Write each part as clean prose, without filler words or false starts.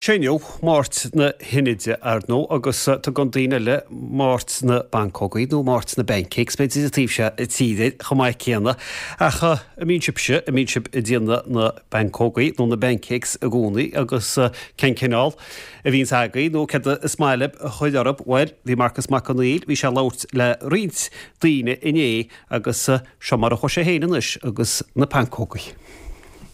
Sé inniu Máirt na hInide, ar ndóigh, agus tugann daoine eile Máirt na bPancógaí nó Máirt na bPancakes, b'fhéidir, an taobh seo tíre chomh maith céanna. Ach an mbíonn sibhse, an mbíonn sibh ag déanamh na bpancógaí nó na bpancakes i gcónaí agus cén cineál a bhíonns agaibh nó céard is maith libh a chur orthu? Bhuel, bhí Marcas Mac Conghail, bhí sé ag labhairt le roinnt daoine inné agus seo mar a chuaigh sé féin anois agus na pancógaí.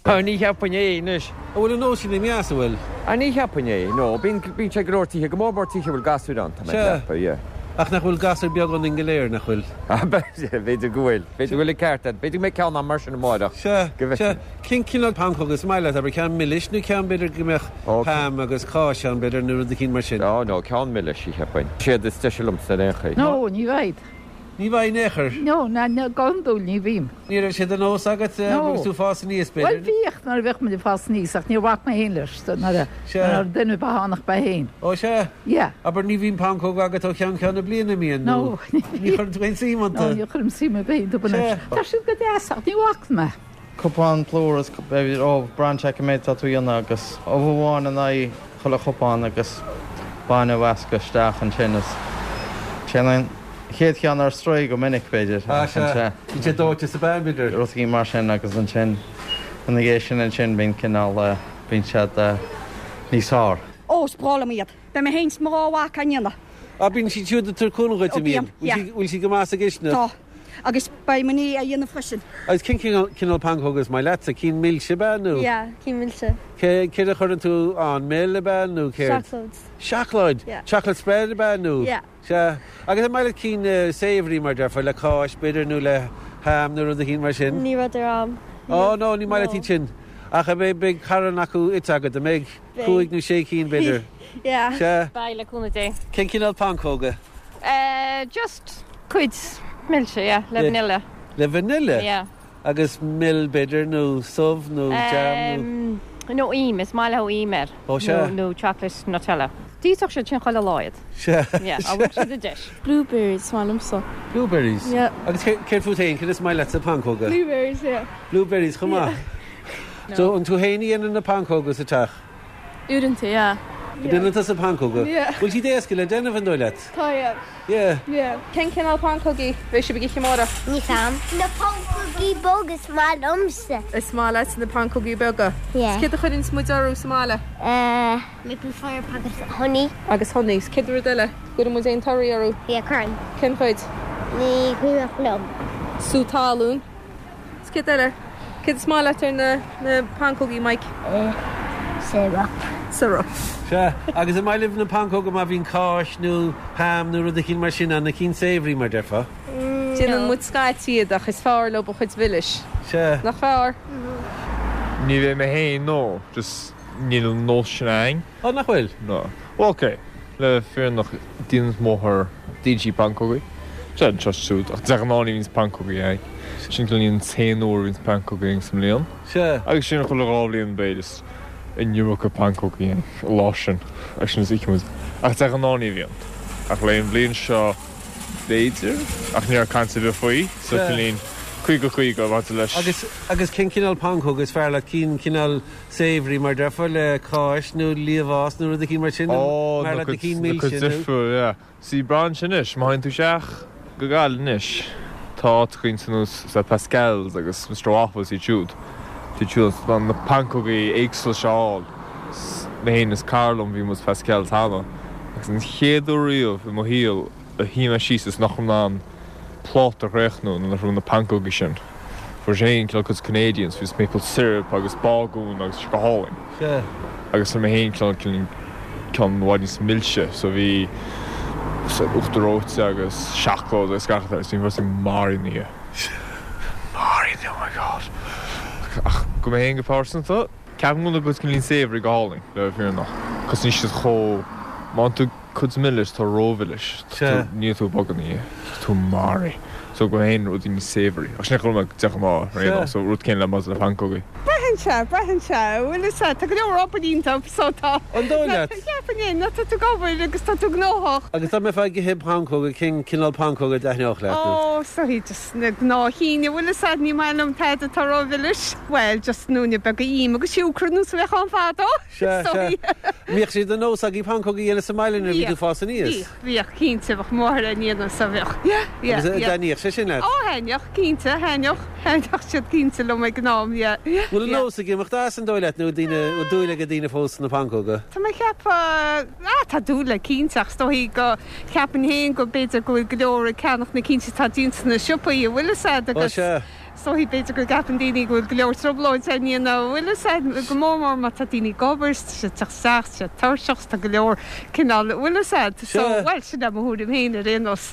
Ah, ní cheapfainn é anois. An bhfuil an nós sin imithe as, an bhfuil? Ah, ní cheapfainn é, no. Bíonn, bíonn sé go leor tithe, go mór mór tithe a bhfuil gasúir ann, tá mé ag Sea. ceapadh, yeah. Ach nach bhfuil gasúir beag ionainn go léir, nach bhfuil? Ah, b'fhéidir go bhfuil. B'fhéidir go bhfuil an ceart agat. B'fhéidir go mbeidh ceann agam mar sin amáireach. Sea, Go sea. bhfeicfidh. Cén cineál pancóg is maith leat, abair, ceann milis nó ceann b'fhéidir go mbeadh Ó, ham agus cáis ann, b'fhéidir, nó rud eicínt mar sin? Oh, no, ceann milis, cheapfainn. Siad is deise liomsa ar aon chaoi. No, ní bhfaighid. Ní bhfaighidh in aon chor. No, ná, ná, go hiondúil ní bhím. Ní raibh sé de nós agat No. agus tú ag fás aníos, Bhuel, b'fhéidir? bhíodh nuair a bhíodh muid ag fás aníos ach níor bhac mé féin leis so nuair a, Sea. nuair a duine ar bith ann ach mé féin. Ó, sea? Yeah. Abair, ní bhíonn pancóg agat ó cheann ceann na bliana, an mbíonn? No, Nó ní ní bhíonn. chuireann tú aon suim No, iontu? ní chuirim suim ar bith iontu Sea. anois. Tá siad go deas ach ní bhacann mé. Cupán plúr is b'fhéidir ubh, braitheann sé cé méid atá tú a dhéanamh agus ubh amháin in aghaidh chuile chupán agus bainne a mheascadh isteach ansin is téann an chéad cheann ar strae go minic b'fhéidir Ah ach sea, ansin bíonn sé dóite sa bpeann b'fhéidir. rudaí mar sin agus ansin ina dhiaidh sin ansin bíonn cineál bíonn siad níos fearr. Ó, is breá liom iad. Beidh mé féin 's mo dhá mhac á ndéanamh. Ah bíonn siad siúd ag tabhairt cúnamh dhuit, Ó an mbíonn? bíonn, yeah. Bhfuil siad go maith sa gcistineach? Tá. Agus beidh mo nia á dhéanamh freisin. Agus cén cineál pancóga is maith leatsa? Cinn milse ab ea nó? Yeah, cinn milse. Cé, céard a chuireann tú ann? Mil ab ea nó céard? Seacláid. Seacláid? Yeah. Chocolate spread ab ea nó? Yeah. Sea. Agus an maith leat cinn savoury mar déarfá, le cáis b'fhéidir nó le ham nó rud eicínt mar sin? Ní rud ar am. Oh no, ní maith leat iad sin. Ach an mbeidh, beidh carn acu ite agat, an mbeidh? Beidh. Cúig nó sé cinn b'fhéidir? Yeah. Sea. Beidh, le cúnamh Dé. Cén cineál pancóga? Eh, just cuid milse, yeah, le vanilla. Le vanilla? Yeah. Agus mil b'fhéidir nó subh nó jam nó. Em, nó im, is maith leo im air. Ó sea. Nó chocolate Nutella. D'íosfadh siad sin chuile lá iad. Sea. Yeah, dá bhfaigheadh siad an deis. Blueberries is maith liomsa. Blueberries? Yeah. Agus céard fút féin, céard is maith leat sa pancóga? Blueberries, yeah. Blueberries chomh maith? Yeah. So an tú féin a dhéanann na pancóga sa teach? Uaireanta, yeah. Déanann tusa pancóga? Yeah. Bhfuil siad éasca le déanamh an dóigh leat? Tá, yeah. Yeah. Yeah. Cén cineál pancógaí a bheidh sibh ag ithe amárach? Níl 's a'm. Na pancógaí beaga is maith liomsa. Is maith leat na pancógaí beaga? Yeah. 'S céard a chuireanns muid orthu sa mbaile? Eh, maple syrup agus honey. Agus honey. 'S céard rud eile? Gcuireann muid aon torthaí orthu? Yeah, cuireann. Cén chuid? Ní cuimhneach liom. Sú talún. 'S céard eile? Céard is maith leat ar na na pancógaí, Mike? Eh, syrup. Syrup. Sea, agus an maith libh na pancóga má bhíonn cáis nó ham nó rud eicínt mar sin ann, na cinn savoury mar déarfá? Déanann muid scaití iad ach is fearr leo an chuid mhilis. Sea. Nach fearr? Ní bheidh mé féin, no, just níl an nós sin a'ainn. Ó, nach bhfuil? No. Bhuel, ok, le fírinne déanann m'athair, déanann sí pancógaí. Sea, anseo is siúd, ach de ghnáth ní bhíonns pancógaí a'ainn. Sin cineál an t-aon uair a bhíonns pancógaí a'ainn sa mbliain. Sea. Agus sin chuile dhá bhliain b'fhéidir, is an iomarca pancógaí a'ainn an lá sin, agus sin is íocann muid. Ach de ghnáth ní bhíonn. Ach le an bhliain seo, b'fhéidir, ach ní raibh caint ar bith faoi, so Sea. cineál 50, 50 maidir leis. Agus, agus cén cineál pancóga is fearr leat? Cinn cineál savoury mar déarfá, le cáis nó liamhás nó rud eicínt mar sin, Ó, mar na leat na cuid, cinn na cuid milse nó. difriúil, yeah. See, braitheann sé anois, má théann tú isteach go Gaillimh anois, tá áiteachaí ar nós sa Pascal's agus Mister Waffles iad siúd, iad siúd in ann na pancógaí éagsúla seo a fháil. Mé féin is cara liom, bhí muid sa Pascal's cheana agus an chéad uair riamh i mo shaol a shuigh mé síos is nach raibh mé in ann pláta a chríochnú nuair nach raibh na pancógaí sin. Fuair sé féin cineál cuid Canadians, bhí maple syrup agus bágún agus go hálainn. Sea. Agus fuair mé féin cineál ceann i bhfad níos milse so bhí uachtar reoite agus seacláid agus gach rud agus bhí mé maraithe ina dhiaidh. Maraithe, oh my god. Ach go mé féin go pearsanta, ceapaim go bhfuil na cuid cineál savoury go hálainn le bheith fírinneach. Cos níl siad chomh, má tú Cuid milis, tá rómhilis. Sea. Níl tú ag bogadh ina dhiaidh. Tá tú maraithe. So go mé féin rudaí níos savoury. Ach sin é chomh maith de ghnáth, ar aon nós. So rud céanna le maidir le pancógaí. Beidh. Braitheann sé, braitheann sé. Bhfuil fhios a'd, tá go leor obair iontu so tá. An dóigh leat? Cheapfainn é, nó tá tú ag obair agus tá tú gnóthach. Agus dá mbeifeá ag ithe pancóga, cén cineál pancóga a dtaitneodh leat? Ó, is dóigh just na gnáth-chinn, bhfuil fhios a'd, ní maith liom tada atá rómhilis. Bhuel, just noinne beaga im agus siúcra nós a bheadh ann fadó, Sea, is dóigh. sea. Mbíodh sé de nós agaibh pancóga a dhéanamh sa mbaile nuair a bhí tú ag fás aníos? Bhíodh, bhíodh, cinnte, bheadh máthair á ndéanamh so bheadh. Yeah, yeah, Agus yeah. dtaitníodh sé sin leat? Ó, thaitneodh, cinnte, thaitneodh, thaitneodh siad cinnte liom ag an am, yeah, yeah. Bhfuil an nós ag imeacht as an dóigh leat nó daoine, bhfuil dúil ag daoine fós sna pancóga? Tá mé ag ceapadh, ah, tá dúil acu cinnte ach is dóigh go, cheapfainn féin go b'fhéidir go bhfuil go leor ag ceannach na cinn atá déanta sna siopaí, an bhfuil fhios a'd Ó, agus sea. Is dóigh, b'fhéidir go gceapann daoine go bhfuil go leor trioblóid á ndéanamh, an bhfuil fhios a'd, go mór mór má tá daoine ag obair, tá siad ag teacht isteach, tá siad tuirseach, tá go leor cineál, an bhfuil fhios a'd. So, bhuel, sin é mo thuairim féin ar aon nós.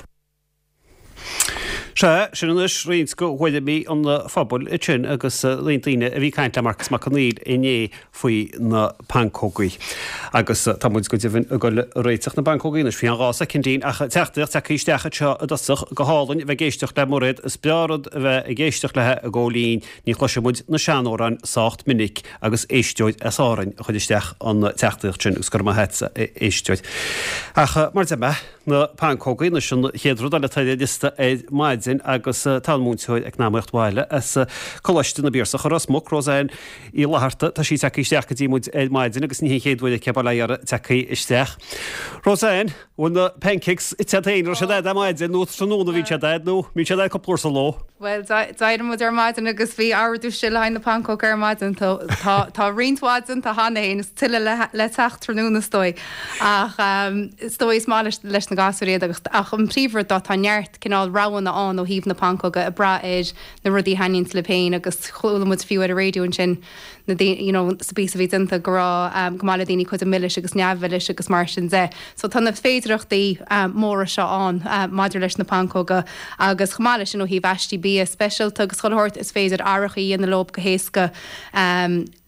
Sea, sin anois roinnt de thuairimí an phobail ansin agus roinnt daoine a bhí ag caint le Marcus Mac Conghail inné faoi na pancógaí. Agus tá muid go deimhin ag dul ag réiteach na bpancógaí anois faoi cheann 2 soicindín ach teachtaireacht tagtha isteach anseo i dtosach, go hálainn a bheith ag éisteacht le Mairéad, is breá rud a bheith ag éisteacht léi ag gabháil fhoinn, ní chloiseann muid na seanamhráin sách minic agus éisteoir as Árainn a chuir isteach an teachtaireacht sin agus go raibh maith agatsa a éisteoir. Ach mar a deir mé, na pancógaí anois an chéad rud eile atá ar an liosta ar maidin agus tá an múinteoir eacnamaíocht bhaile as Coláiste na bPiarsach i Ros Muc, Roseanne Uí Fhlatharta, tá sí tagtha isteach go dtí muid ar maidin agus ní hé an chéad uair aici bail ó Dhia uirthi tagtha isteach. Roseanne, bhfuil na pancakes ite agat féin, raibh siad a'd ar maidin nó tráthnóna a bhíonn siad a'd nó bíonn siad a'd cúpla uair sa ló? Bhuel, d'éirigh muid ar maidin agus bhí ordú istigh le haghaidh na pancóg ar maidin. Tá roinnt mhaith déanta cheana féin is tuilleadh le teacht tráthnóna is dóigh. Ach is dóigh is maith leis na gasúir iad agus ach an príomhrud ná tá neart cineál roghanna ann ó thaobh na pancóga ag brath ar na rudaí a thaitníonns libh féin agus chuala muid fiú ar an raidió ansin na daoine you know sa bpíosa a bhí déanta go raibh go maith le daoine cuid milis agus neamh-mhilis agus mar sin de. So tá na féidireachtaí móra seo ann maidir leis na pancóga agus chomh maith leis sin ó thaobh aistí bia speisialta agus chuile shórt is féidir athrachaí a dhéanamh leo go héasca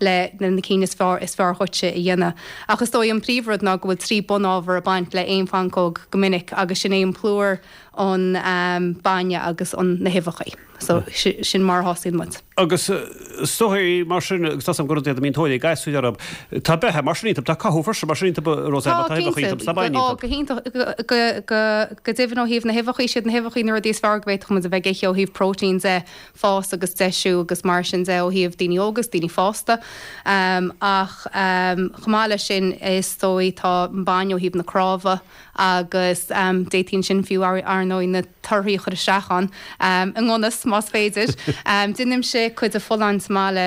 le na cinn is fearr is fearr dhuitse a dhéanamh. Ach is dóigh an príomhrud ná go bhfuil 3 bunábhar ag baint le aon phancóg go minic agus sin é an plúr, an bainne agus an na huibheachaí. So sin mar a thosaíonn muid. Agus is dóigh mar sin, agus tá 's agam gur rud iad a mbíonn tóir ag gasúir orthu, tá beatha mar sin iontu, tá cothú freisin mar sin iontu, Roseanne, má tá uibheacha iontu, tá bainne iontu. Ó, go hiontach, go deimhin ó thaobh na huibheachaí, siad na huibheachaí na rudaí is fearr go bhféadfadh muid a bheith ag ithe ó thaobh próitéin de, fás agus deisiú agus mar sin de ó thaobh daoine óga is daoine fásta. Ach chomh maith leis sin is dóigh tá an bainne ó thaobh na cnámha agus d'fhéadfaí ansin fiú ar ndóigh na torthaí a chur isteach ann i ngan fhios más féidir. Déanaimse cuid de folláin sa mbaile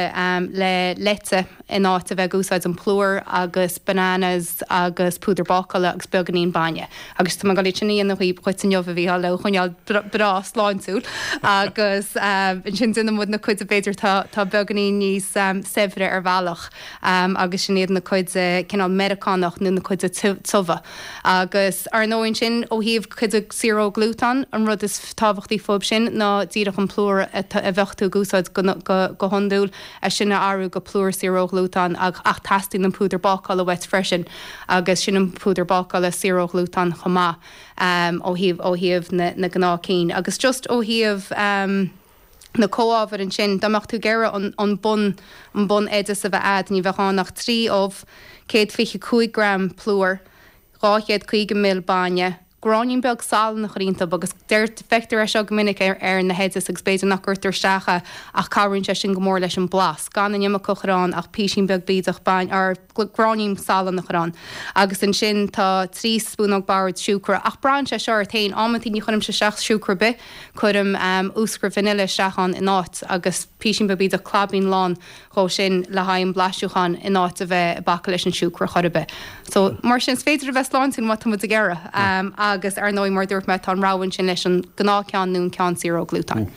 le leite in áit a bheith ag úsáid an plúr agus bananas agus púdar bácála agus beagáinín bainne. Agus tá mé ag dul iad sin a dhéanamh dhuit inniu a Mhícheáil le choinneáil breá sláintiúil agus ansin déanann muid na cuid b'fhéidir tá beagáinín níos saibhre ar bhealach agus sin iad na cuid cineál Meiriceánach nó na cuid tiubha. Agus ar ndóigh ansin ó thaobh cuid saor ó ghlútan, an rud is tábhachtaí fúb sin ná díreach an plúr a bheadh tú ag úsáid go hiondúil, é sin a athrú go plúr saor ó ghlútan ach teastaíonn an púdar bácála uait freisin agus sin an púdar bácála saor ó ghlútan chomh maith ó thaobh ó thaobh na na gnáth cinn. Agus just ó thaobh na comhábhair ansin, dá mbeadh tú ag iarraidh an an bun an bun oideas a bheith a'd ní bheadh ann ach 3 ubh, 125 gram plúr, 250 ml bainne, gráinnín beag salainn a chur iontu agus deir, feictear é seo go minic ar ar na hoidis agus b'fhéidir nach gcuirtear isteach é ach cabhraíonn sé sin go mór leis an blas, gan an iomarca a chur ann ach písín beag bídeach bainne or gráinnín salainn a chur ann. Agus ansin tá 3 spúnóg boird siúcra ach braitheann sé seo ort féin, amantaí ní chuirimse isteach siúcra ar bith, cuirim úscra vanilla isteach ann in áit agus písín beag bídeach claibín lán dhó sin le haghaidh an blaisiúcháin in áit a bheith ag bacadh leis an siúcra chor ar bith. So, mar sin, is féidir a bheith sláintiúil má tá muid ag iarraidh. Agus, ar ndóigh, mar a dúirt mé, tá an rogha ansin leis an gnáthcheann nó an ceann saor ó ghlútan.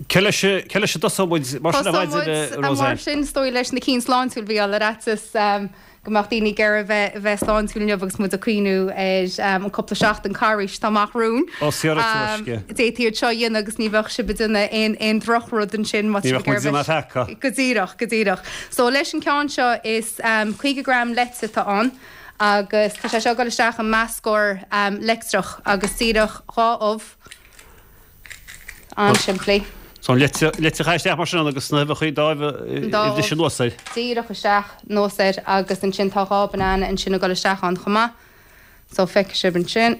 Cé leis, cé leis a dtosóidh muid mar sin ar maidin, Tosóidh muid, Roseanne? mar sin, is dóigh, leis na cinn sláintiúil, a Mhícheáil, ar fhaitíos. go mbeadh daoine ag iarraidh a bheith sláintiúil inniu agus muid ag cuimhniú ar an cúpla seachtain carghais atá amach romhainn. Ó, saor tuaisce. D'fhéadfaí iad seo a dhéanamh agus ní bheadh sibh ag déanamh aon aon drochrud ansin má Ní bheadh muid ag déanamh peaca. Go díreach, go díreach. So leis an ceann seo is 50 gram leite atá ann agus tá sé seo ag dul isteach i meascóir leictreach agus díreach 2 ubh. An-simplí. So an leite a chaitheamh isteach mar sin agus na huibheacha dá uibh anuas air. Díreach isteach anuas air agus ansin tá 2 banana ansin ag dul isteach ann chomh maith. So feicfidh sibh ansin.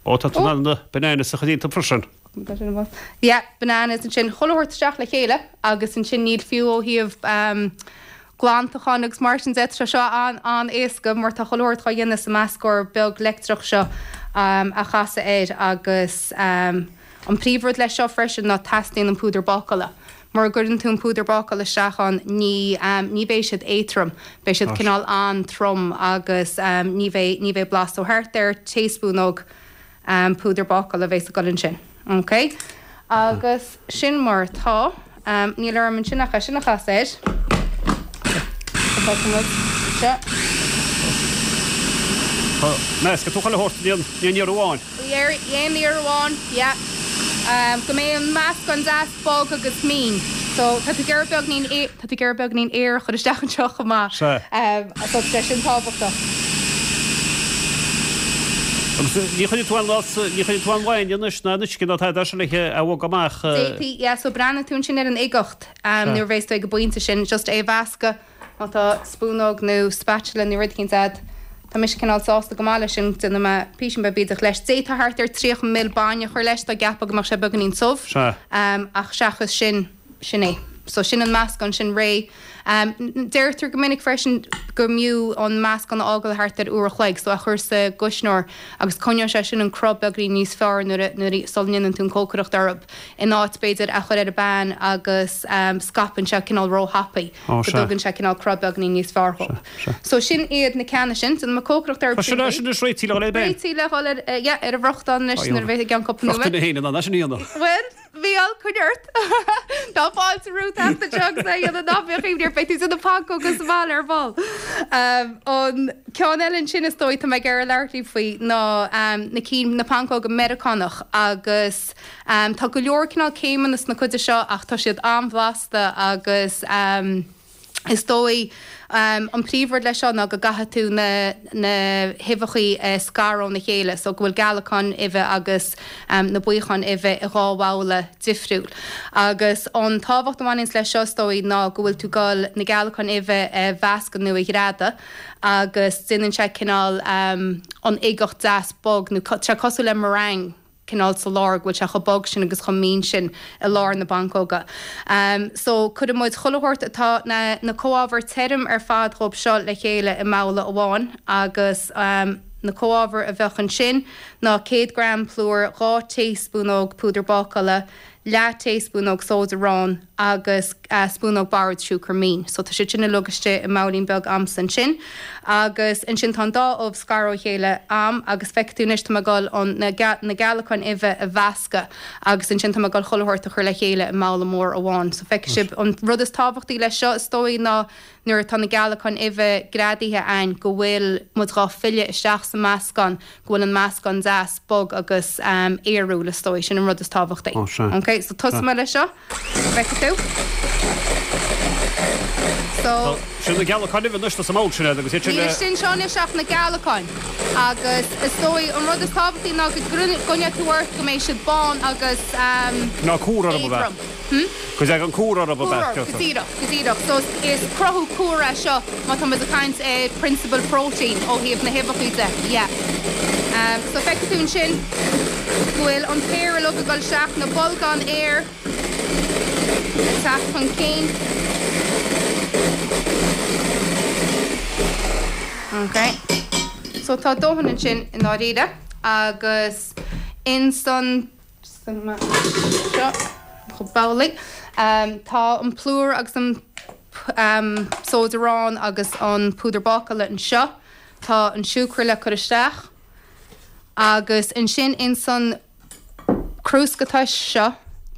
Ó tá tú in ann na bananas a chur iontu freisin. Yeah, bananas ansin. Chuile shórt isteach le chéile agus ansin níl fiú ó thaobh glantacháin agus mar sin de, tá sé seo an-éasca mar tá chuile shórt dhá dhéanamh sa meascóir beag leictreach seo a chasadh air agus an príomhrud leis seo freisin ná teastaíonn an púdar bácála. Mura gcuireann tú an púdar bácála isteach ann ní ní bheidh siad éadtrom, beidh siad cineál an-trom agus ní bheidh ní bheidh blas. So thart ar taespúnóg púdar bácála a bheas ag dul ansin. Ok. Agus sin mar atá. Níl orm ansin ach é sin a chasadh air. Feicfidh muid anseo. Meascfaidh tú chuile shórt in aon iarraidh amháin. Aon iarraidh amháin, yeah. Go mbeidh an meascán deas bog agus mín. So tá tú ag iarraidh beagnín, tá tú ag iarraidh beagnín aer a chur isteach anseo chomh maith. Sea. So tá sé sin tábhachtach. Agus ní chuirfidh tú aon, ní chuirfidh tú aon bhainne anois ná aon uisce ná tada sin le é a bhogadh amach. D'fhéadfaí, yeah, so breathnaíonn tú ansin ar an uigeacht nuair a bheas tú ag an bpointe sin, just é a mheascadh. Má tá spúnóg nó spatula nó rud eicínt a'd, tá mise cineál sásta go maith leis sin, déanfaidh mé písín beag bídeach leis. D'fhéadfá thart ar 30 ml bainne a chur leis dá gceapfá go mbeadh sé beagáinín tiubh, ach seachas sin, sin é. So sin an meascán sin réidh. Deirtear go minic freisin go mb'fhiú an meascán a fhágáil thart ar uair a chloig, so a chur sa gcuisneoir agus coinneoidh sé sin an cruth beagáinín níos fearr nuair a, nuair a, sula ndéanann tú an cócaireacht orthu, in áit b'fhéidir a chur ar an bpan agus scaipeann sé cineál róthapaidh. Ó, go sea. dtugann sé cineál cruth beagáinín níos fearr dhóibh. Sea, sea. So sin iad na ceanna sin. Déanfaidh mé cócaireacht orthu Tá sin sin é sin anois réitithe le dhul ar an bpan. Réitithe le dhul ar, yeah, ar an bhfriochtán anois Tá nuair a bheidh i gceann cúpla Bheadh nóiméad. duine féin in ann é sin a dhéanamh. Bhuel, Mícheál, coinnigh ort. Tá fáilte romhat teacht anseo agus é a dhéanamh ná bíodh imní ort, beidh tú ag déanamh pancóga sa bhaile ar ball. An ceann eile ansin is dóigh tá mé ag iarraidh labhairt libh faoi ná na cinn, na pancóga Meiriceánach agus, Tá go leor cineál céimeanna sna cuide seo ach tá siad an-bhlasta agus is dóigh an príomhrud leis seo ná go gcaithfidh tú na na huibheachaí a scaradh óna chéile so go bhfuil gealacáin uibhe agus na buíocháin uibhe i dhá bhabhla difriúil. Agus an tábhacht a bhaineanns leis seo is dóigh ná go bhfuil tú ag dul na gealacáin uibhe a mheascadh nó a ghreadadh agus déanann sé cineál an uigeacht deas bog nó tá sé cosúil le meringue. cineál sa lár, go bhfuil sé chomh bog sin agus chomh mín sin i lár na bpancóga. So, cuirfidh muid chuile shórt atá, na, na comhábhair tirim ar fad dhóib seo le chéile i mbabhla amháin agus na comhábhair a bheadh ansin ná 100 gram plúir, 2 taespúnóg púdar bácála, leath taespúnóg sóid aráin agus spúnóg boird siúcra mín. So tá siad sin uilig istigh i mbabhailín beag a'msa ansin. Agus ansin tá an dá ubh scartha ó chéile a'm agus feicfidh tú anois tá mé ag dul an, na, na gealacáin uibhe a mheascadh agus ansin tá mé ag dul chuile shórt a chur le chéile i mbabhla mór amháin. So feicfidh sibh an rud is tábhachtaí leis seo is dóigh ná nuair atá na gealacáin uibhe greadaithe a'ainn go bhfuil muid dhá filleadh isteach sa meascán, go bhfuil an meascán deas bog agus aerúil is dóigh, sin an rud is tábhachtaí. Ó sea. Ok, so tosóidh mé leis seo, feicfidh tú. So. Sin na gealacáin uibhe anois sa mbabhla sin agus iad sin Níl le. istigh anseo anois ach na gealacáin agus is dóigh an rud is tábhachtaí ná go gcoinneoidh tú ort go mbeidh siad bán agus Ná cúr orthu a bheith. éadrom. Hm? Go dtagann cúr orthu Cúr orthu, go díreach, go díreach. So is cruthú cúr é seo má tá muid ag caint ar prionsabal próitéin ó thaobh na huibheachaí de, yeah. So feicfidh tú ansin go bhfuil an t-aer uilig ag dul isteach, na bolgáin aeir ag teacht chun cinn. Ok. So tá dóthain ansin i ndáiríre agus insan. Seo chomh babhlaí. Tá an plúr agus an sóid aráin agus an púdar bácála anseo. Tá an siúcra le cur isteach. Agus ansin ins an crúsca tais seo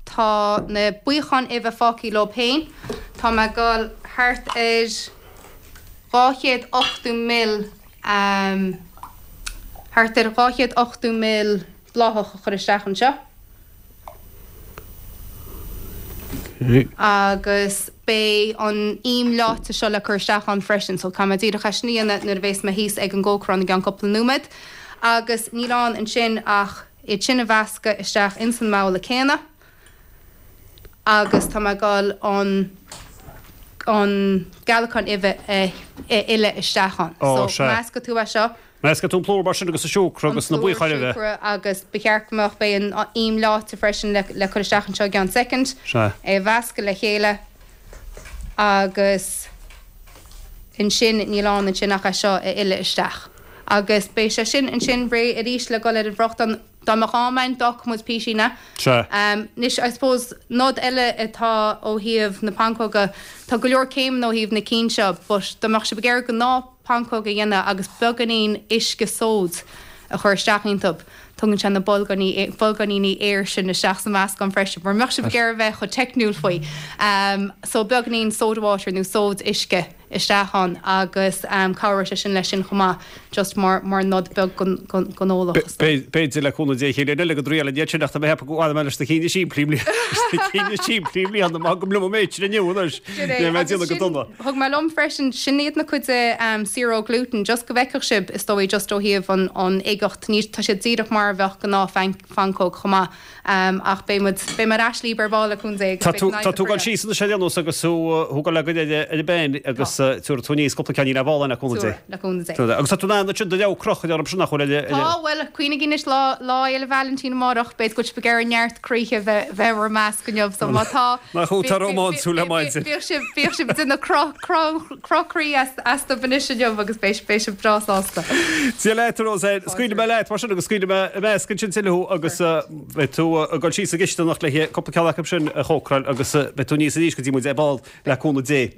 tá na buíocháin uibhe fágtha leob féin. Tá mé ag dul thart ar 280 ml, thart ar 280 ml bláthach a chur isteach anseo agus beidh an im leáite seo le cur isteach ann freisin so caithfidh mé díreach é sin a dhéanamh nuair a bhéas mé thíos ag an gcócaireán i gceann cúpla nóiméad agus níl ann ansin ach iad sin a mheascadh isteach ins an mbabhla céanna. Agus tá mé ag dul an an gealacán uibhe a fhilleadh isteach ann. Ó, So, sea. meascfaidh tú é seo. Meascfaidh tú an plúr mar sin agus an siúcra agus na An plúr, buíocháin uibhe. siúcra agus ba cheart go mbeadh, beidh an im leáite freisin le le cur isteach anseo i gceann soicind. Sea. É a mheascadh le chéile agus ansin níl ann ansin ach é seo a fhilleadh isteach. Agus beidh sé sin ansin réidh arís le dul ar an bhfriochtán. Dá mbeadh am ann, d'fhágfadh muid písín é. Sea. Anois, I suppose, nod eile atá ó thaobh na pancóga, tá go leor céimeanna ó thaobh na cinn seo, but dá mbeadh sibh ag iarraidh gnáth pancóg a dhéanamh agus beagáinín uisce sóid a chur isteach iontu, tugann sé na bolgáiní, bolgáiníní aeir sin isteach sa mheascán freisin, mura mbeadh sibh ag iarraidh a bheith chomh teicniúil faoi. So beagáinín soda water nó sóid uisce. isteach ann agus cabhróidh sé sin leis sin chomh maith, just mar mar nod beag don eolach is dóigh. B'fhéidir le cúnamh Dé chéile eile go dtriailfinn iad sin ach tá mé ag ceapadh go bhfanfaidh mé leis na cinn is simplí na cinn is simplí i mbliana mar gabhaim liom an méid sin inniu anois. Sin é, Níl mé ag agus déanamh go sin, dona. thug mé liom freisin, sin iad na cuid de zero gluten, just go bhfeicfeadh sibh is dóigh just ó thaobh an an uigeacht, ní, tá siad díreach mar a bheadh gnáth phancóg chomh maith. Ach beidh muid, beidh mé ar ais libh ar ball le cúnamh Dé agus Tá beidh tú, an tá tú ag dul oibre síos anois ar aon nós agus tú, tú ag dul le goil ar an bpeann agus tabharfaidh tú aníos cúpla ceainnín ar ball le cúnamh Dé. Le cúnamh Dé. Agus tá tú in ann ansin do leabhar crochadh orm sin nach bhfuil ar, ar. Tá, bhuel, cuimhnigí anois lá, Lá Fhéile Vailintín amárach, b'fhéidir go bhfuil sibh ag iarraidh neart croíthe a bheith, bheith i bhur measc inniu, so má tá, Nach thú atá rómánsúil le maidin. bíodh sibh, bíodh sibh ag déanamh cruth, cruth, Cruth croí astu anois inniu agus beidh sibh breá sásta. Dia leat, a Roseanne. Scaoilfidh mé leat mar sin agus scaoilfidh mé i measc ansin tuilleadh thú agus beidh tú ag dul síos sa gcisteanach le cúpla ceann acu sin a chócaráil agus beidh tú aníos arís go dtí muid ar ball le cúnamh Dé.